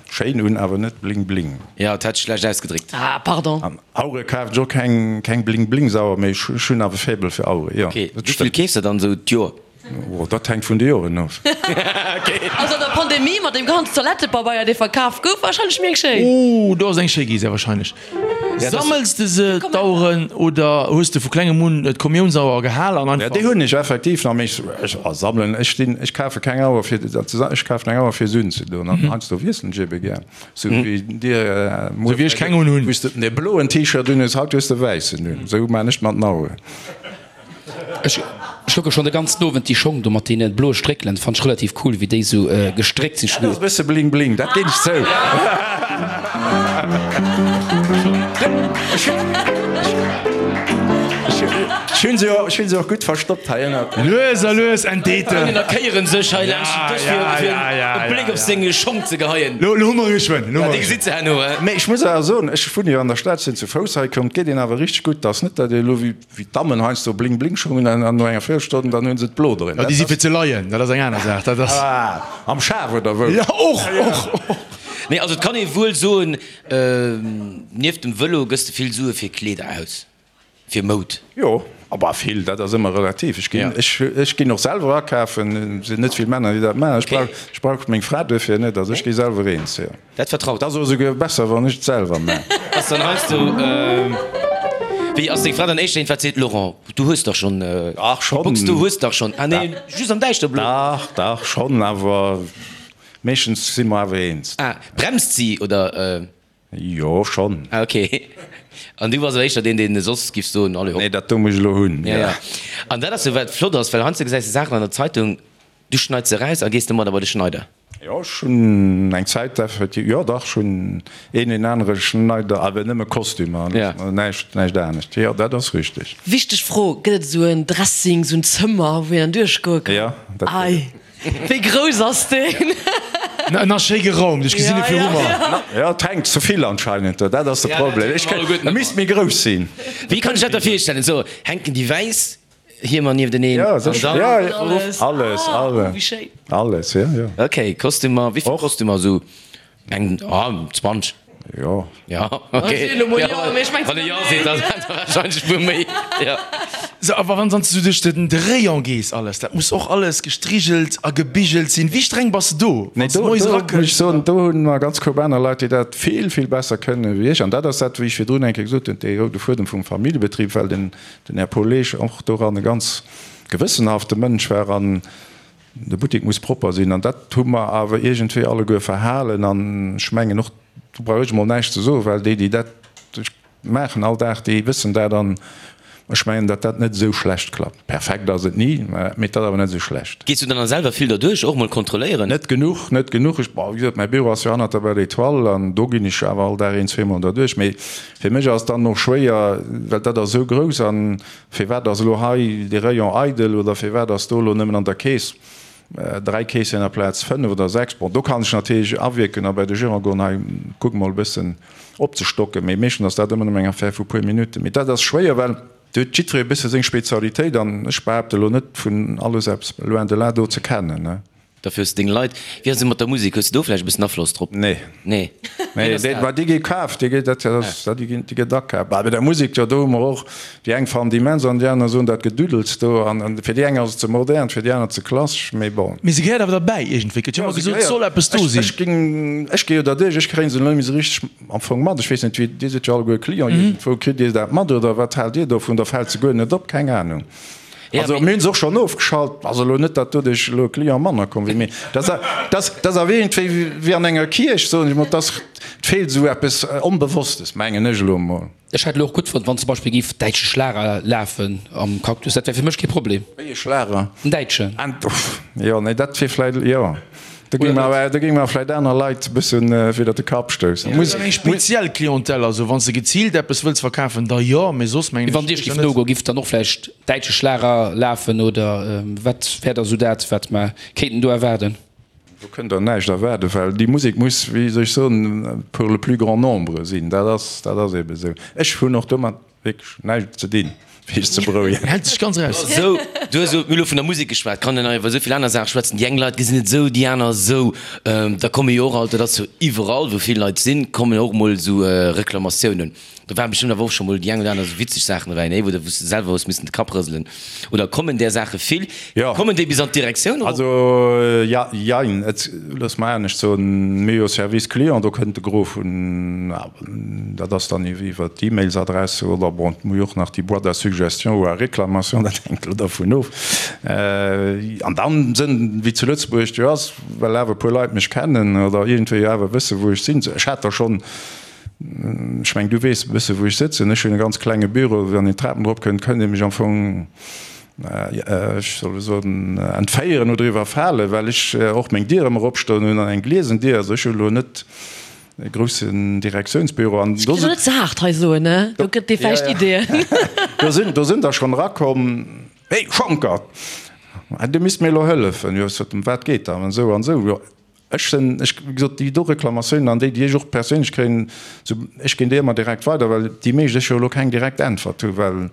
schéin un, awer net Bling Bling. Jo, dat hat ech schlecht ausgedréckt. Ah, pardon. An Auere kafen ech och keng, keng Bling Bling Sauer, mee ech hunn awer e Faible fir Auere, jo. Ok, wéi vill keefs de dann esou d'Joer? Oh, dat hänkt vun de Joren of. Also an der Pandemie mat deem ganzen Toilettepabeier dee verkaf gouf, warscheinlech méi eng schéin. Oh, do ass eng schéi gi, sehr wahrscheinlech. Sammels de se, d'Aueren, oder hues de vu klengem un d'Kommiounsauer gehal an einfach. Ja, déi hunn ech effektiv nach, mee ech sammelen, ech stinn, ech kafe keng Auer fir dat ze sammeln, ech kafen eng Auer fir se unzedoen an heiansdo wiesselen ech ebe gär, sou wéi dir muer, sou wéi ech keng unhunn, wou s de de bloen T-Shirt unhues, haut hues de e wäissen un, sou man ech mat den Aueren. Ech kucke schon de ganzen Owend déi Schong do mat deene bloe Stréckelen, fannt ech relativ cool wéi déi sou gestréckt sinn. Dat ass e bësse bling bling, dat ginn ech zou. Ech hunn se och gutt verstoppt hei ënnert. Lues a lues entdeet en. D'Frënninner kéieren sech hei laanscht den Dësch fir e Bléck op seng Schong ze geheien. Lo hu mer e geschwënn. Ja, déi gesitt se herno. Mee ech muss awer soen, ech wunne jo an der Stad, sinn zu Fouss hei komm, et geet een awer richteg gutt. Et ass net, datt ee elo wéi. Wéi d'Dammen heiansdo bling bling Schong hunn an no enger Véierelstonn dann hunn se d'Blo drin. Jo, déi si fir ze leien, dat ass eng aner Saach. Dat ass. Ah, am Schaf oder wou? Jo, och, och, och. Nee, also et kann ee wuel soen, nieft dem Vëlo gëss de vill Sue fir Kleeder aus, fir Moud. Jo, bah vill, dat ass ëmmer relativ. Ech ginn, ech, ech ginn och selwer akafen, et sinn net vill Männer, déi dat maachen. Ech brauch, ech brauch meng Fra duerfir net, also ech gi selwer eens, jo. Dat vertraut. Ass och esouguer besser wann ech et selwer man. Ass dann heiansdo wéi ass deng Fra dann éischter een wat seet, Laurent du hues dach schonn Dach schonn. Box du hues dach schonn, ah nee just am däischterblo. Dach dach schonn, awer meeschtens si mer awer eens. Ah bremst si oder? Jo schonn. Ah ok an du bass awer éischter deen deen soss giff soen allez hopp. Nee dat do muss ech elo hunn. Ja ja an dat ass jo wat flott ass, well heiansdo gesäis de Saachen an der Zeitung, du schneits se eraus a gees domadder bei de Schneider. Jo, ech hunn eng Zäit effektiv, jo dach, ech hunn een een anere Schneider, awer nëmme Kostümer, näischt, näischt anescht. Jo, dat ass richteg. Wichteg Fro, Gëtt et esou en Dressing, esou en Zëmmer, wou een dann duerchgoe kann? Jo, dat gëtt et. Ei, wéi grouss ass deen? En ass schéi geraumt, ech gesinn e viru mer. Jo, et hänkt ze vill anscheinend do, dat ass de Problem. Ech kéint, e misst méi grouss sinn. Wéi kann ech dat da virstellen? Esou hänken déi wäiss Hiemer niefteneen. Ja, sécher. Ja, ja. Alles, alles. Oh, wéi schéin. Alles, ja, ja. Ok, Kostümer, wéi vill Kostümer esou? Eng, ah, 20. Jo. Ja, ok. Wann e Jo seet, da warscheinlech e puer méi, ja. Sou, awer wann s du duerch den de Rayon gees, alles, dat muss och alles gestrigelt a gebigelt sinn. Wéi streng bass de do, Nee, wann s de do, moies do muss ech erakënns? soen, do hunn mer ganz koup aner Leit, déi dat vill, vill besser kënnen wéi ech. An dat ass dat, wéi ech virdrun eng Kéier gesot hunn, dee roude Fuedem vum Familljebetrib, well den Den Här Paul Leesch och doran e ganz gewëssenhafte Mënsch war an de Buttek muss propper sinn an dat hu mer awer iergendwéi alleguer verhalen an ech mengen och, do brauch ech emol näischt ze soen, well déi, déi dat maachen all Dag, déi wëssen dat an ech mengen, datt dat net esou schlecht klappt. Perfekt ass et ni, mee et ass awer net esou schlecht. Gees du dann selwer vill derduerch, och mol kontrolléieren? Net genuch, net genuch. Ech, bon, wéi gesot, mäi Büro ass jo hannert der Belle Étoile an do ginn ech awer all Dag een, zweemol derduerch, mee Fir mech ass dann och schwéier, well dat ass esou grouss, an firwat ass elo hei dee Rayon eidel oder firwat ass do elo nëmmen an der Keess 3 Keessieren aplaz 5 oder 6. Bon, do kann ech natierlech awierken a bei de Gérant goen, hei kuck mol e bëssen opzestocken, mee meeschtens ass dat ëmmer nëmmen eng Affaire vu puer Minutten. Mee dat ass schwéier, well do huet jiddweree e bësse seng Spezialitéit an ech behaapte elo net vun alles eppes loin de là do ze kennen. Dofir hues de deng Leit. Wéi ass et mat der Musek? Hues de do vläicht e bëssen Afloss drop? Nee. Nee. Nee, déi, ma déi gi kaaft, déi gi, dat ass, déi ginn, déi gëtt akaaft. Bah, bei der Musek, jo, do hu mer och, déi eng fannen déi immens an déi aner soen, dat Geduddels do. An, an fir déi eng ass et ze modern, fir déi aner ze klassesch, mee bon. Mee se gehéiert awer derbäi iergendwéi. Gëtt jo ëmmer gesot, et soll eppes do sinn. Ech, ech géing, ech gi jo derduerch, ech kréien se elo net méi esou richteg am Fong mat. Ech weess net, wéi, Dir sidd jo alleguer Client iergendwou, kritt Dir dat mat oder wat haalt Dir dovun? Da fält se guer net op, keng Anung. Also mir hunn se och schonn ofgeschalt. Ass elo net, datt doduerch elo e Client manner komm wier, mee dat ass awer iergendwéi wéi an enger Kierch, soen ech mol. Et feelt esou eppes Onbewosstes, mengen ech elo emol. Ech hätt elo och gutt fonnt, wann zum Beispill géif däitsche Schlager lafen am Cactus. Dat wär fir mech kee Problem. Wéi e Schlager? En däitschen. Jo, nee, dat wier vläicht, jo. Do géinge mer awer, do géinge mer vläicht aner Leit e bëssen widder de Kapp stoussen. Muss eng speziell Clientèle, also wann s de geziilt eppes wëlls verkafen, da jo, mee soss mengen ech. Wann Dir giff nogoen, giff dann och vläicht däitsche Schlager lafen oder wat wär da sou dat, wat mer kéinten do erwaarden? Do kënnt Der näischt erwaarden, well déi Musek muss, wéi soll ech soen, pour le plus grand nombre sinn. Dat ass, dat ass eebe sou. Ech hunn och domat Wierklech näischt ze dinn, fir iech ze berouegen. Hält sech ganz eraus. Sou, du hues elo, mir hu elo vun der Musek geschwat, kann een nach iwwer esou vill aner Saache schwätzen. Déi eng Leit gesinn et esou, déi aner esou. Da komme jo och alt, dat ass jo iwwerall, wou vill Leit sinn, kommen och emol esou Reklamatiounen. Do waren bestëmmt awer och scho mol déi eng oder aner esou witzeg Saachen dobäi, nee, wou de wou s de selwer hues missen de Kapp rëselen. Oder kommen där Saache vill? Jo. Kommen déi bis an d'Direktioun erop? Also, ja, jein. Et, looss mer anescht soen, mir hu jo Service Client, do kënnt de Gros vun, dat ass dann iwwer d'E-Mails-Adresse oder bon, mir hu jo och nach déi Boîte à suggestions ou à réclamations, dat hänkt elo dervun of. An dann sënn, wéi zu Lëtzebuerg jo ass, well awer e puer Leit mech kennen oder iergendwéi awer wësse wou ech sinn, ech hat der schonn, Ech mengen, du weess e bësse wou ech sëtzen. Ech hunn e ganz klenge Büro, wann een d'Trapen erop kënnt, kënnt ee mech am Fong, ech soll elo soen, entféieren oder iwwerfalen, well ech och meng Dier ëmmer opstoen hunn an eng gliesen Dier. Also ech hu elo net e groussen Direktiounsbüro. An do net ze haart hei soen, ne? Do gëtt dee vläicht Ideeën. Do sinn, do sinn der schonn erakomm, Hey Schonckert, du misst mir elo hëllefen. Jo, ech sot, ëm wat geet dat? An esou an esou. Jo, Ech sinn, ech, wéi gesot, déi do Reklamatiounen an déi, déi ech och perséinlech kréien, sou, ech ginn déi ëmmer direkt weider, well déi meescht ech jo elo keng direkt Äntwert hu, well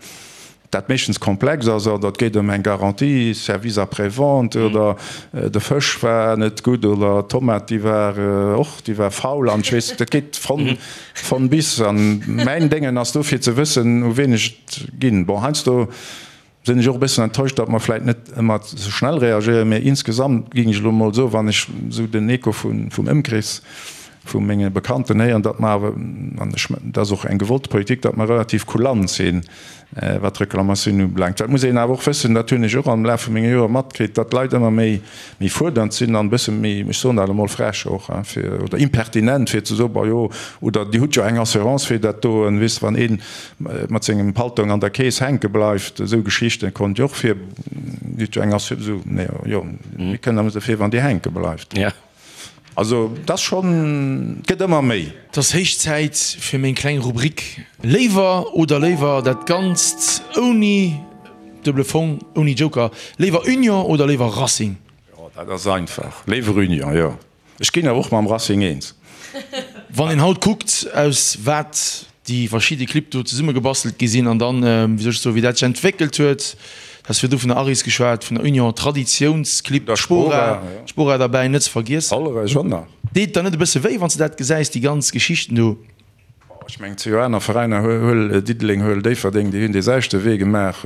dat meeschtens komplex ass oder et geet ëm eng Garantie, Service après-vente oder de Fësch war net gutt oder d'Tomat, déi war och, déi war faul an ech weess, dat geet von, von bis. An mäin Déngen ass do fir ze wëssen, u wien ech et ginn. Bon, heiansdo Sinn ech och e bëssen enttäuscht, datt mer vläit net ëmmer esou schnell reagéieren, mä insgesamt géing ech elo emol soen, wann ech esou den Echo vum Ëmkrees vu menge Bekannten héieren, datt mer awer, an ech, dat ass och eng gewollte Politik, datt mer relativ kulant sinn, wat d'Reklamatiounen ubelaangt. Dat muss een awer och wëssen, dat hunn ech och am Laf vu menge Joer matkritt, datt d'Leit ëmmer méi, méi fuerdernd sinn an e bësse méi, ech soen dat emol frech och, hein, fir, oder impertinent, fir ze soen, Bon jo, oder Dir hutt jo eng Assurance fir dat do, weess de, wann een mat sengem Paltong an der Keess hänke bleift, esou Geschichten konnt jo och vir, Dir hutt jo eng Assurance, esou, nee, jo, mir kënnen awer dofir, wann Dir hänke bleift. Also, et ass schonn, et gëtt ëmmer méi. Et ass héich Zäit fir meng kleng Rubrik Léiwer oder léiwer, dat Ganzt ouni duebele Fong, ouni Joker. Léiwer Union oder léiwer Racing? Jo, dat ass einfach. Léiwer Union, jo. Ech ginn awer och mam Racing eens. Wann een haut kuckt, aus wat déi verschidde Clibb do zesummegebastelt gi sinn an dann, wéi soll ech soen, wéi dat sech entwéckelt huet, du has virdu vun der Aris geschwat, vun der Union, Traditiounsclibb, d'Spora, d'Spora derbäi net ze vergiessen. Hollerech och nach. Deet der net e bësse wéi, wann s de dat gesäis, déi ganz Geschichten do? Ech mengen, et si jo aner Veräiner, huel Diddeleng, huel Déifferdeng, déi hunn dee selwechte Wee gemaach.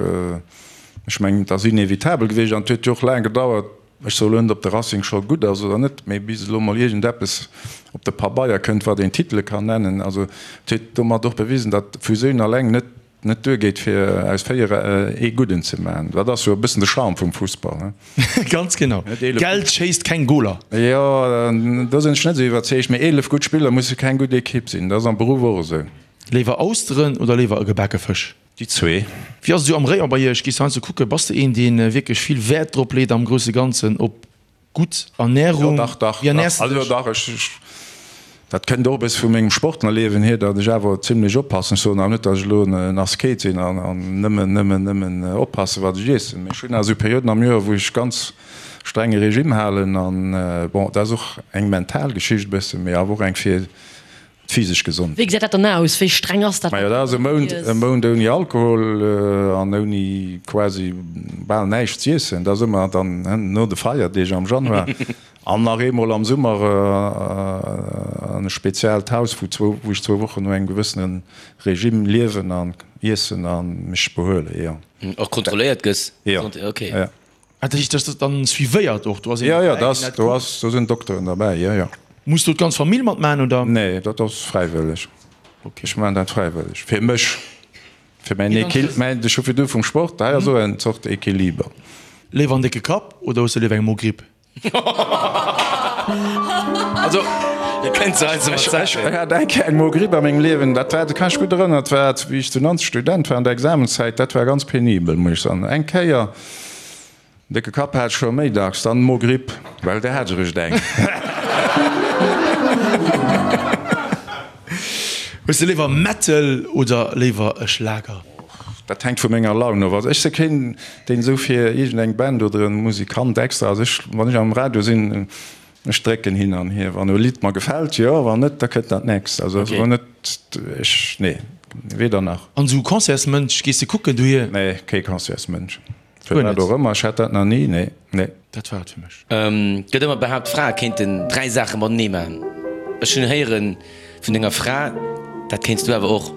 Ech mengen, et ass inevitabel gewiescht an et huet jo och laang gedauert, Ech soe lo net, ob de Racing scho gutt ass oder net, mee bis elo mol iergendeppes op de Pabeier kënnt, wat een Titele kann nennen. Also et huet domat och bewisen, datt Fusioun alleng net net duergeet, fir aus 4 ee Gudden ze maachen. Dat ass jo e bëssen de Charme vum Fussball, he? Ganz genau. Geld schéisst keng Goler. Jo, do sinn ech net esou iwwerzeegt. Mee 11 gutt Spiller musse keng gutt Ekipp sinn. Dat ass am Beruff och esou. Léiwer Austeren oder léiwer e gebake Fësch? Déi zwee. Wéi ass et esou am Rayon bei iech? Gees du heiansdo kucken? Bass de een, dee wierklech vill Wäert drop leet am grousse Ganzen op gutt Ernärung? Jo, dach, dach, Wéi ernäers dach. de Also dech? dach, ech, ech, dat kënnt och e bësse vu mengem Sportlerliewen hier, datt ech awer zimlech oppassen. Ech soen awer net, datt ech elo en Asket sinn an, an nëmmen, nëmmen, nëmmen oppassen, wat ech iessen. Mee ech hunn awer esou Perioden am Joer, wou ech ganz strenge Regime halen an, bon, dat ass och eng mental Geschicht e bëssen, mee awer och eng fir. D'physesch Gesondheet. Wéi gesäit dat dann aus? Wéi streng ass dat? Majo, dat ass e Mount, e Mount ouni Alkohol an ouni quasi bal näischt z'iessen. Dat ass ëmmer dann no de Feierdeeg am Januar an nach eemol am Summer an e speziellt Haus, wou zwou, wou ech zwou Wochen no engem gewëssene Regime liewen an iessen a mech behuelen, jo. Och kontrolléiert gëss? Jo, jo. Ah, dat heescht, dat ass dann suivéiert och? Do ass een Jo, jo, derbäi, dat deen ass, dat do kuckt? ass, do sinn Dokteren derbäi, jo, jo. Muss do d'ganz Famill matmachen, oder? Nee, dat ass fräiwëlleg. Okay. Ech maachen dat fräiwëlleg, fir mech, fir mäin Mee dann Equil, mäin, ech hu virdu vum Sport, hei ass och eng Zort Equiliber. Léiwer en décke Kapp oder hues de léiwer eng Mogripp? Also, ech hat eng Kéier eng Mogripp a mengem Liewen, dat war, dat kann ech gutt erënneren, dat war, wéi ech zu Nanzeg Student war an der Examenszäit, dat war ganz penibel, muss ech soen. Eng Kéier. Décke Kapp hat ech scho méi dacks, dann Mogripp, well där hat ech eréischt eng. Hues de léiwer Metal oder léiwer e Schlager? Dat hänkt vu menger Laun of. Also ech si keen, deen esou fir iergendeng Band oder e Musikant extra ass. Ech, wann ech am Radio sinn, ech drécken hin an hier. Wann e Lidd mer gefält, jo, wann net, da kënnt dat nächst. Also ass elo net, ech, nee, weder nach. An esou Concertsmënsch, gees de kucken dohier? Nee, kee Concertsmënsch. Fir wat och ëmmer, ech hat dat nach ni, nee, nee. Dat war et fir mech. Gëtt ëmmer behaapt, Frae kéinten 3 Saache matenee maachen. Ech hunn héieren vun denger Fra, dat kéints du awer och.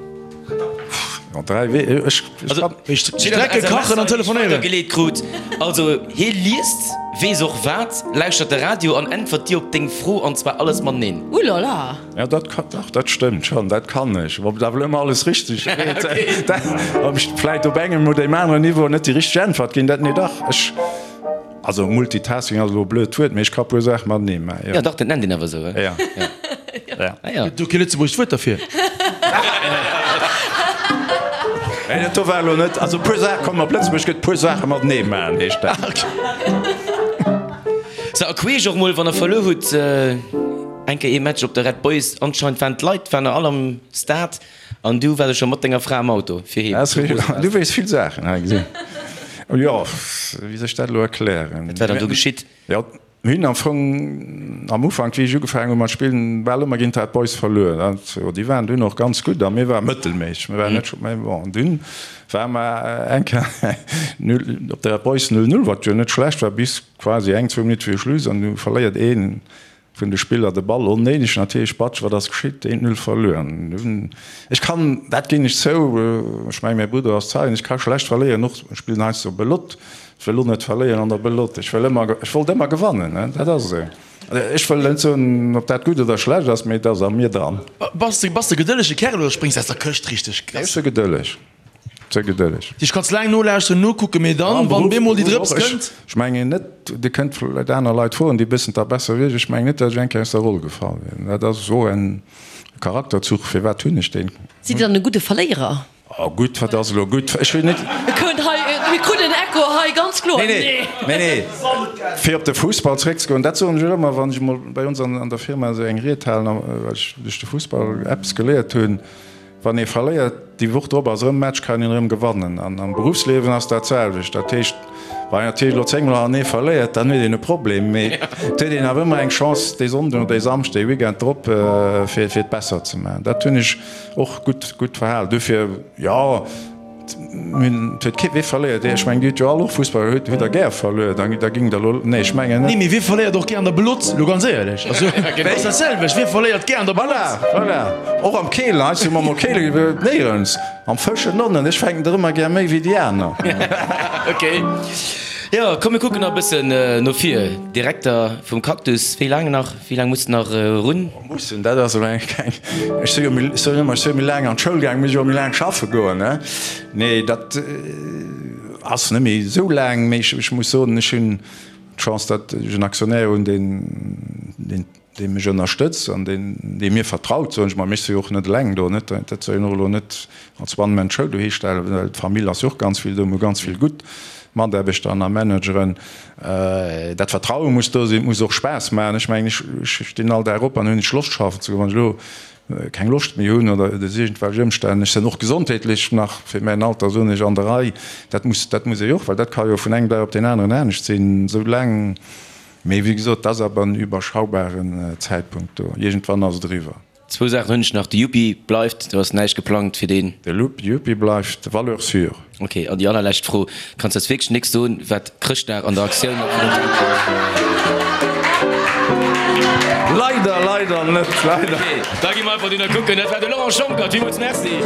Jo, 3 wee, ech, ech kann. Strecke, kachen an telefonéieren. Geleet krut. Also hie liest, weess och wat, lauschtert de Radio an äntwert dir op deng Fro, an zwar alles mateneen. Ulala! Ja, dat ka, dach, dat stëmmt schonn, dat kann ech. Ob et awer elo ëmmer alles richteg geet, dat, ob ech vläit op engem oder deem aneren Niveau net déi richteg Äntwert ginn, dat, nee, dach, ech, also Multitasking ass elo e blöd Wuert, mee ech ka puer Saache matenee maachen, jo. Ja, dach, dat nennt een awer esou, he? Ja, ja. Ah ja. Gëtt do kee lëtzebuergescht Wuert derfir? Nee, dat do war elo net, also puer Saache, komm, op Lëtzebuergesch gëtt puer Saache matenee maachen, heescht dat. Sou, a queesch och mol, wann der verluer hutt. Eng Kéier ee Match op der Red Boys, anscheinend waren d'Leit waren all am Stade an du waars scho mat denger Fra am Auto fir heem. Du weess vill Saachen, hei gesinn. Jo, wéi soll ech dat elo erklären? Wat war dann do geschitt? Jo, mir hunn am Fong am Ufank, wéi ech ugefaangen hu mat spillen, bal ëmmer géint d'Red Boys verluer. Dat, déi waren dunn och ganz gutt a mir ware mëttelméisseg. Mir waren net scho, mä bon, dunn ware mer eng Kéier null op der Red Boys 0, 0, wat jo net schlecht war, bis quasi eng, zwou Minutte viru Schluss an du verléiert een Vun de Spiller de Ball onnéideg natierlech, Batsch, wat ass geschitt? Eent Null verluer. Ech kann, dat ginn ech zou, ech mengen mäi Brudder ass Zeien, ech ka schlecht verléieren, och ech spillen heiansdo Belotte, ech wëll och net verléieren an der Belotte, ech wëll ëmmer, ech wollt ëmmer gewannen, dat ass esou. Ech wëll net soen, ob dat gutt oder schlecht ass, mee et ass a mir dran. Bass de, bass de gedëllege Kerl oder spréngs aus der Këscht richteg? Ech si gedëlleg. Ze gedëlleg. Dich kanns laang nolauschteren, nokucken, mee dann, wann bemol déi Drëps kënnt. Ech mengen net, Dir kënnt vläit aner Leit froen, déi wëssen dat besser wéi ech, ech mengen net, datt ech eng Kéier aus der Roll gefall wier. Dat ass och en Charakterzuch. Firwat hunn ech deen? Sidd Dir dann e gudde Verléierer? Oh gutt, wat ass elo gutt? Ech hunn net. Et kënnt hei, mir kruten en Echo hei, ganz kloer. Nee, nee, nee, nee. Fir op de Fussball zréckzegoen, dat soen ech och ëmmer, wann ech emol bei ons an der Firma esou eng Ried halen, well ech duerch de Fussball eppes geléiert hunn, Wann ee verléiert, déi Woch drop ass erëm Match, kann een erëm gewannen. An am Beruffsliewen ass dat selwecht. Dat heescht, wann een natierlech elo 10 mol hanneree verléiert, dann huet een e Problem, mee et huet een awer ëmmer eng Chance dee Sonnden oder dee Samschden, dee Weekend drop, fir et besser ze maachen. Dat hunn ech och gutt, gutt verhalen. Dofir, jo. Et huet kee, wee verléiert? Ech mengen, Dir hutt jo all och Fussball, hutt Der gär verluer? Da géing Der elo, nee, ech mengen net. Nee, mee wie verléiert och gär an der Belotte, elo ganz éierlech? Also, et ass dat selwecht, wie verléiert gär an der Belotte? Voilà, voilà. Och am Keelen, hei hu mer mol Keele gespillt, néierens. Am Fëschen onnen, ech fänken der ëmmer gär méi wéi déi aner. Ok. Jo, komm mir kucken nach e bëssen no vir. Direkter vum Cactus, wéi laang nach? Wéi laang muss de nach erun? Mussen, dat ass elo eng keng. Ech si jo méi, ech soen ëmmer, ech si jo méi laang an d'Schoul gaang, muss ech och méi laang schaffe goen, ne? Nee, dat ass net méi esou laang, mee ech muss soen, ech hunn d'Chance, datt ech en Aktionär hunn, deen, deen, dee mech ënnerstëtzt an deen, dee mir vertraut, soen ech mol. Mee ech si jo och net eleng do, net? Dat soll een och elo net als One-Man-Show dohistellen, well d'Famill ass jo och ganz vill do, mir hu ganz vill gutt Mataarbechter an a Manageren. Dat Vertraue muss do sinn, et muss och Spaass maachen. Ech mengen, ech stinn all Dag op an hunn ech Loscht schaffen ze goen. Wann ech elo keng Loscht méi hunn oder duerch iergendwelch Ëmstänn, ech sinn och gesondheetlech nach fir mäin Alter, soen ech, an der Rei, dat muss, dat muss ee jo och, well dat ka jo vun engem Dag op deen aneren anescht sinn, esou laang. Mee wéi gesot, dat ass awer en überschaubaren Zäitpunkt do. Iergendwann ass et eriwwer. Zwou Saachen hunn ech nach, De Yuppie bleift, do ass näischt geplangt fir deen. De Yuppie bleift, Valeur sûre. Ok, an déi allerlescht Fro, Kanns eis wierklech nécks soen, wat Chrëschtdag an der Aktioun op Leider, leider net, leider. Ok, da gi mer einfach dohinner kucken. Dat war de Laurent Schonckert. Villmools Merci.